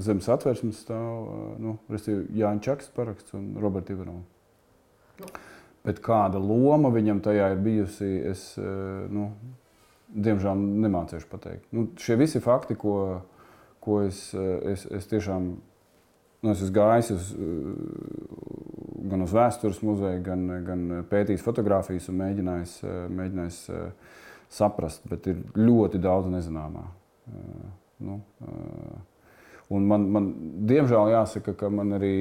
Zem satversmes stāv Jāņa Čakas paraksts un Roberta Ivanova. Bet kāda loma viņam tajā ir bijusi, es diemžēl nemācīšu pateikt. Šie visi fakti, ko es tiešām es esmu gājis gan uz vēstures muzeju, gan pētījis fotogrāfijas un mēģinājis saprast, bet ir ļoti daudz nezināmā. Un man diemžēl jāsaka, ka man arī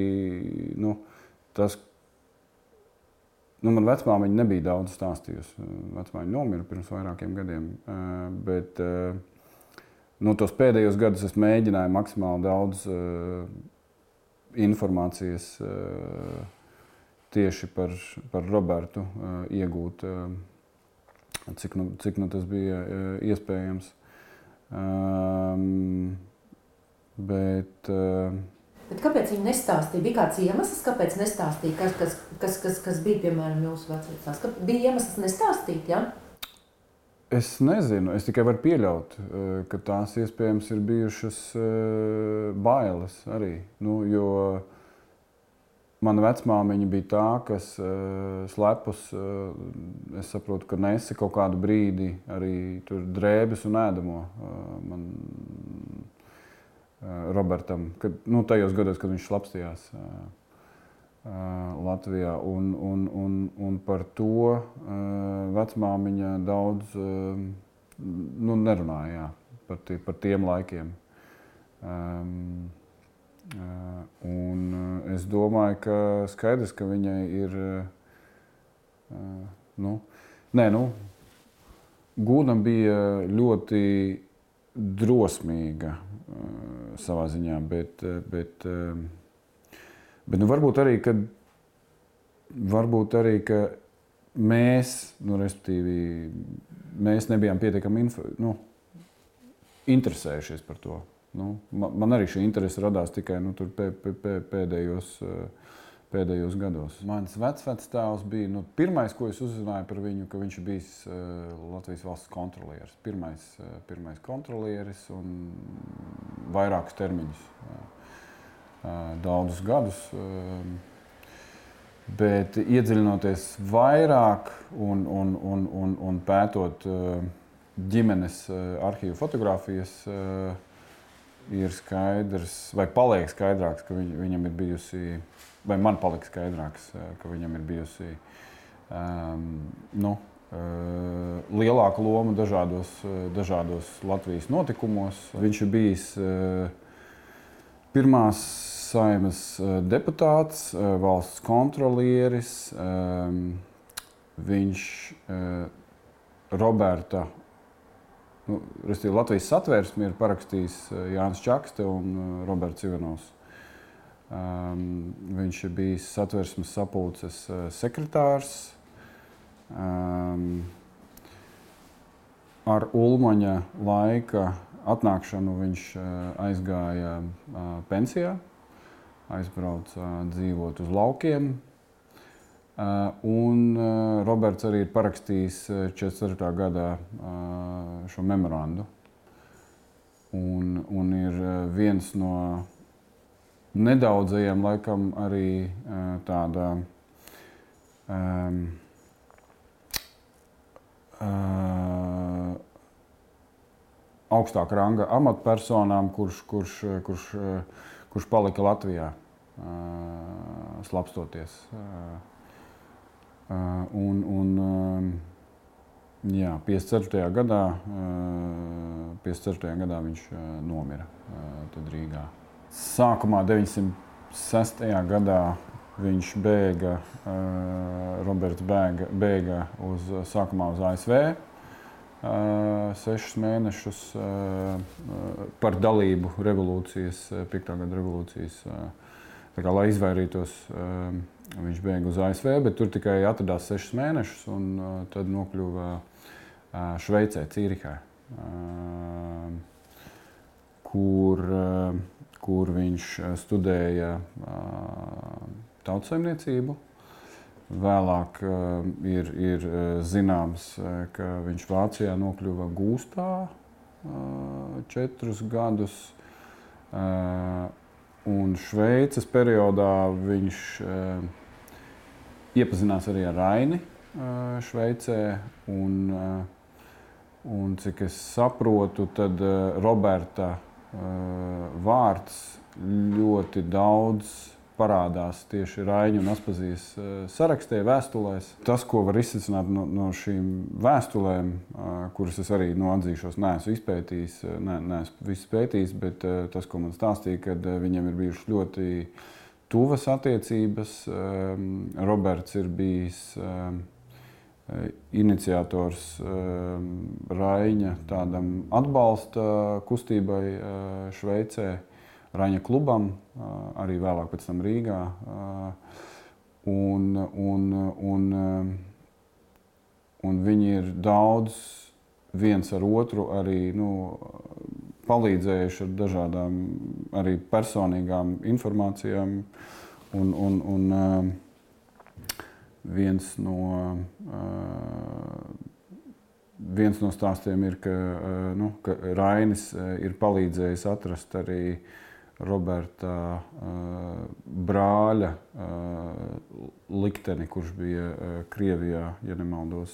man vecmāmiņa nebija daudz stāstījusi. Vecmāmiņa nomira pirms vairākiem gadiem, bet tos pēdējos gadus es mēģināju maksimāli daudz informācijas tieši par Robertu iegūt, cik tas bija iespējams. Bet kāpēc viņi nestāstīja? Bija kāds iemesls, kāpēc nestāstīja? Kas bija, piemēram, jūsu vecvecās? Bija iemesls nestāstīt, ja? Es nezinu. Es tikai varu pieļaut, ka tās iespējams ir bijušas bailes arī. Jo mana vecmāmiņa bija tā, kas slepus, es saprotu, ka nesa kaut kādu brīdi arī tur drēbes un ēdamo Robertam, tajos gados, kad viņš slapstījās Latvijā. Un par to vecmāmiņa daudz nerunāja, par tiem laikiem. Un es domāju, ka skaidrs, ka viņai ir Gūna bija ļoti drosmīga savā ziņā, bet varbūt arī, ka mēs, respektīvi, mēs nebijām pietiekami interesējušies par to. Man arī šī interese radās tikai tur pēdējos gados. Mans vecvectēvs bija pirmais, ko es uzzināju par viņu, ka viņš ir bijis Latvijas valsts kontrolieris. Pirmais kontrolieris un vairākus termiņus, daudzus gadus. Bet iedziļinoties vairāk un pētot ģimenes arhīvu fotogrāfijas, ir skaidrs, vai paliek skaidrāks, ka viņam ir bijusi, vai man palika skaidrāks, ka viņam ir bijusi lielāka loma dažādos Latvijas notikumos. Viņš ir bijis pirmās Saeimas deputāts, valsts kontrolieris. Viņš Roberta, Latvijas satversmi ir parakstījis Jānis Čakste un Roberts Ivanovs. Viņš ir bijis satversmes sapulces sekretārs. Ar Ulmaņa laika atnākšanu viņš aizgāja pensijā, aizbrauca dzīvot uz laukiem. Un Roberts arī ir parakstījis 44. gadā šo memorandu. Un ir viens no nedaudzajiem, laikam, arī tāda augstāka ranga amatpersonām, kurš palika Latvijā slapstoties. Jā, 54. gadā viņš nomira tad Rīgā. Sākumā 906. gadā viņš Roberts bēga sākumā uz ASV 6 mēnešus par dalību revolūcijas, 5. gada revolūcijas. Tā kā, lai izvairītos, viņš bēga uz ASV, bet tur tikai atradās 6 mēnešus un tad nokļuva Šveicē, Cīrihā, kur viņš studēja tautsaimniecību. Vēlāk ir zināms, ka viņš Vācijā nokļuva gūstā 4 gadus. Un Šveices periodā viņš iepazinās arī ar Raini Šveicē. Un cik es saprotu, tad Roberta vārds ļoti daudz parādās tieši Raiņa un Aspazijas sarakstē, vēstulēs. Tas, ko var izsvecināt no šīm vēstulēm, kuras es arī atzīšos, neesmu izpētījis, neesmu visu pētījis, bet tas, ko man stāstīja, kad viņiem ir bijušas ļoti tuvas attiecības. Roberts ir bijis iniciators Raiņa tādam atbalsta kustībai Šveicē, Raņa klubam, arī vēlāk pēc tam Rīgā. Un viņi ir daudz viens ar otru arī palīdzējuši ar dažādām arī personīgām informācijām. Un viens no stāstiem ir, ka Rainis ir palīdzējis atrast arī Roberta brāļa likteni, kurš bija Krievijā, ja nemaldos.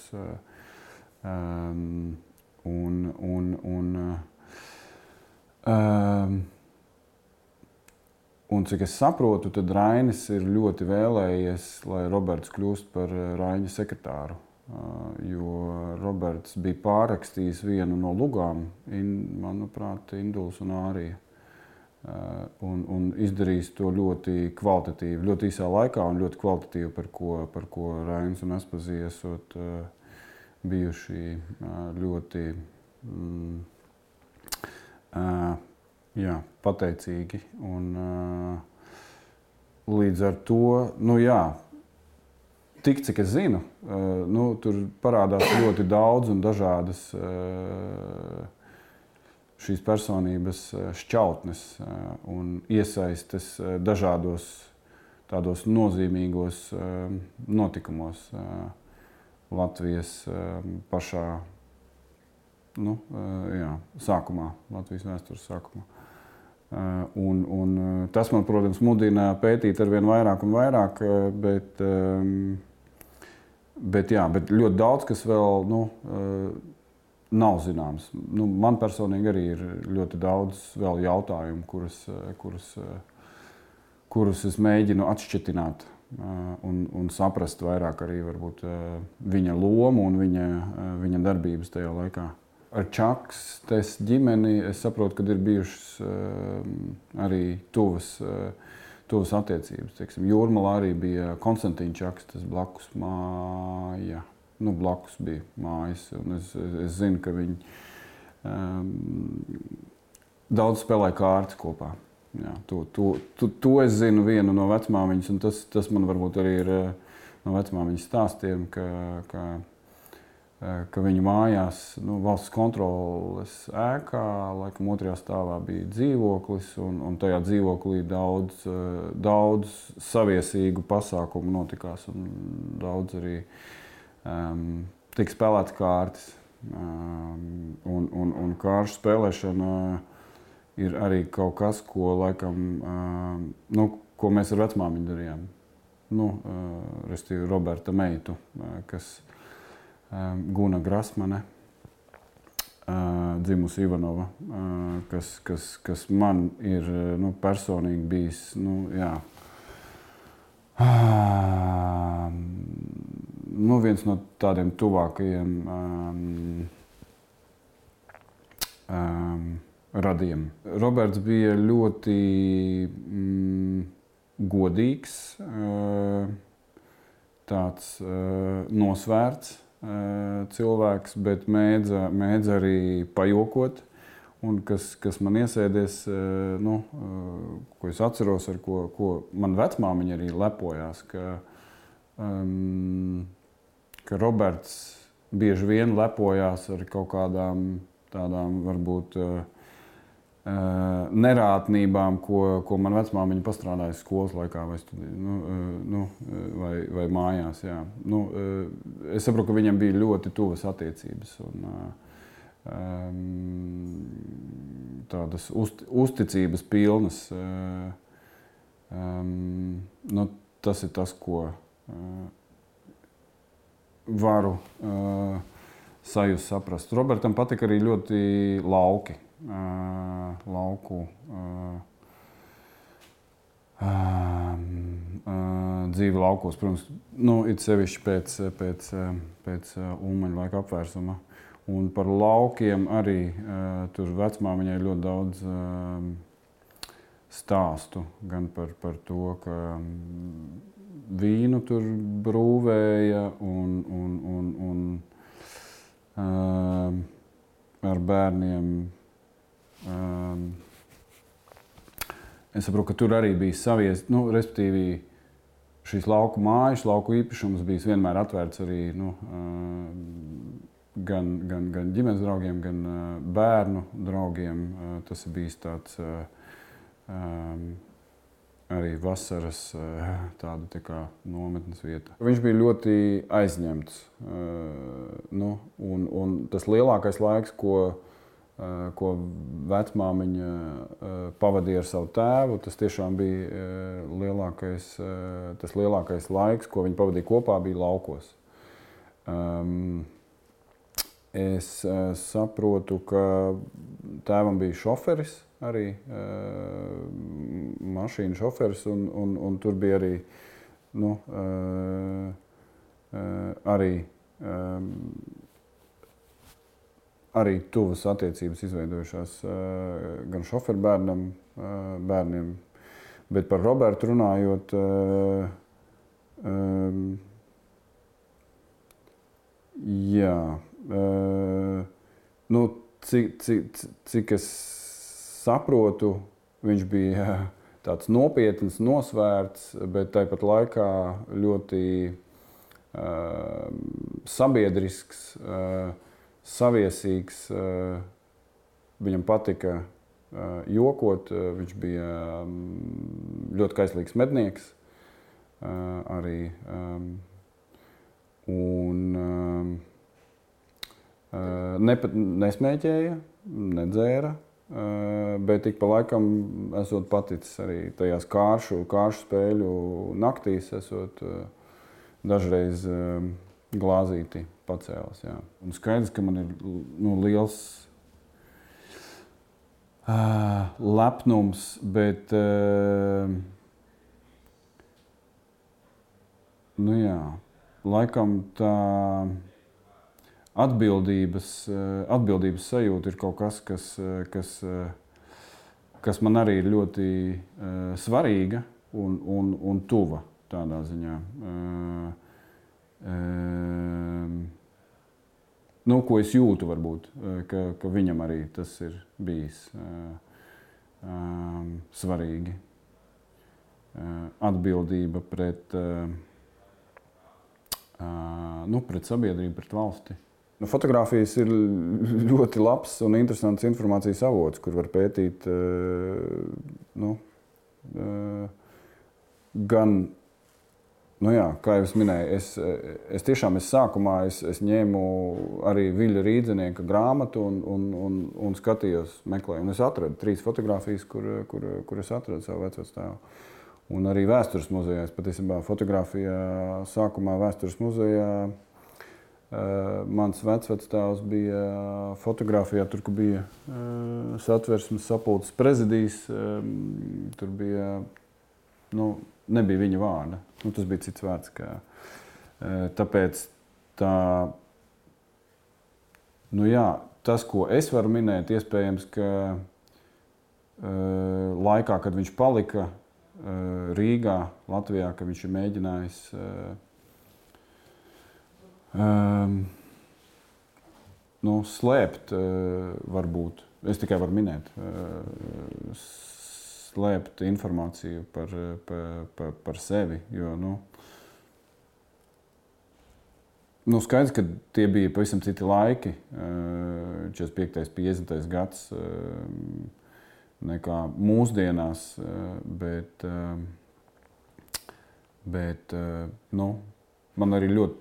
Un cik es saprotu, tad Rainis ir ļoti vēlējies, lai Roberts kļūst par Raiņa sekretāru. Jo Roberts bija pārrakstījis vienu no lugām, manuprāt, Induls un Ārija. Un izdarījis to ļoti kvalitatīvi, ļoti īsā laikā un ļoti kvalitatīvi, par ko Rainis un Aspazija esot bijuši ļoti pateicīgi. Un līdz ar to, tik cik es zinu, tur parādās ļoti daudz un dažādas šīs personības šķautnes un iesaistes dažādos tādos nozīmīgos notikumos Latvijas pašā sākumā, Latvijas vēstures sākumā. Un tas man, protams, mudina pētīt arvien vairāk un vairāk, bet ļoti daudz, kas vēl nav zināms. Man personīgi arī ir ļoti daudz vēl jautājumu, kurus es mēģinu atšķetināt un saprast vairāk arī varbūt viņa lomu un viņa darbības tajā laikā. Ar Čakstes ģimeni es saprotu, ka ir bijušas arī tuvas attiecības. Teiksim, Jūrmalā arī bija Konstantīna Čakstes blakus māja. Blakus bija mājas, un es zinu, ka viņi daudz spēlēja kārtas kopā. Jā, to es zinu vienu no vecmāmiņas, un tas man varbūt arī ir no vecmāmiņas stāstiem, ka viņu mājās, valsts kontroles ēkā, laikam otrajā stāvā bija dzīvoklis, un tajā dzīvoklī daudz saviesīgu pasākumu notikās, un daudz arī tika spēlētas kārtas. Un kāršu spēlēšana ir arī kaut kas, ko laikam, ko mēs ar vecmāmiņu darījām. Restīvi Roberta meitu, kas Guna Grasmane, dzimusi Ivanova, kas man ir personīgi bijis, viens no tādiem tuvākajiem radiem. Roberts bija ļoti godīgs, tāds nosvērts cilvēks, bet mēdz arī pajokot. Un kas man iesēdies, ko es atceros, ar ko man vecmāmiņa arī lepojās, ka Roberts bieži vien lepojās ar kaut kādām tādām varbūt nerātnībām, ko man vecmāmiņa pastrādāja skolas laikā vai mājās. Jā. Es saprotu, ka viņam bija ļoti tuvas attiecības. tādas uzticības pilnas. Nu, tas ir tas, ko varu sajust, saprast. Robertam patika arī ļoti lauki. Lauku dzīve laukos, protams, nu, it sevišķi pēc Ulmaņa laika apvērsuma. Un par laukiem arī tur vecmāmiņai ļoti daudz stāstu, gan par to, ka vīnu tur brūvēja un ar bērniem. Es saprotu, ka tur arī bija savies, nu, respektīvi šīs lauku mājas, lauku īpašums bijis vienmēr atvērts arī, nu, gan ģimenes draugiem, gan bērnu draugiem. Tas ir bijis tāds arī vasaras tāda tā kā nometnes vieta. Viņš bija ļoti aizņemts. Nu, un tas lielākais laiks, ko vecmāmiņa pavadīja ar savu tēvu, tas tiešām bija tas lielākais laiks, ko viņi pavadīja kopā, bija laukos. Es saprotu, ka tēvam bija šoferis arī, mašīnu šoferis, un tur bija arī, nu, arī tuvas attiecības izveidojušās gan šoferu bērniem, bet par Robertu runājot, jā, nu, cik es saprotu, viņš bija tāds nopietns, nosvērts, bet tāpat laikā ļoti sabiedrisks, saviesīgs. Viņam patika jokot, viņš bija ļoti kaislīgs mednieks arī. Un nesmēķēja, nedzēra, bet ik pa laikam esot paticis arī tajās kāršu spēļu naktīs, esot dažreiz glāzīti pacēlis. Jā. Un skaidrs, ka man ir, nu, liels lepnums, bet nu jā, laikam tā atbildības sajūta ir kaut kas, kas man arī ir ļoti svarīga un tuva tādā ziņā. Nu, ko es jūtu varbūt, ka viņam arī tas ir bijis svarīgi. Atbildība pret sabiedrību, pret valsti. Nu, fotogrāfijas ir ļoti labs un interesants informācijas avots, kur var pētīt gan, nu jā, kā jau es minēju, es tiešām sākumā es ņēmu arī Viļa Rīdzenieka grāmatu un skatījos, meklēju. Un es atradu 3 fotogrāfijas, kur es atradu savu vecvectēvu. Un arī vēstures muzejā. Es patiesībā fotografijā sākumā vēstures muzejā mans vecvectēvs bija fotografijā, tur, kur bija Satversmes sapulces prezidijs, tur bija, nu, nebija viņa vārda. Nu, tas bija cits vārds. Tāpēc tā, nu jā, tas, ko es varu minēt, iespējams, ka laikā, kad viņš palika Rīgā, Latvijā, ka viņš ir mēģinājis slēpt, varbūt, es tikai varu minēt, slēpt informāciju par sevi, jo, skaidrs, ka tie bija pavisam citi laiki, 45. 50. gads, nekā mūsdienās, bet man arī ļoti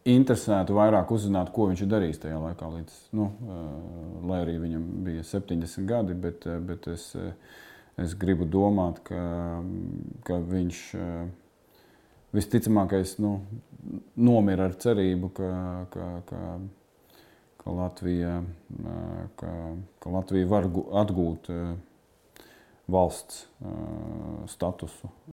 interesētu vairāk uzzināt, ko viņš ir darījis tajā laikā, līdz, lai arī viņam bija 70 gadi, bet es gribu domāt, ka viņš visticamākais nomira ar cerību, ka Latvija var atgūt valsts statusu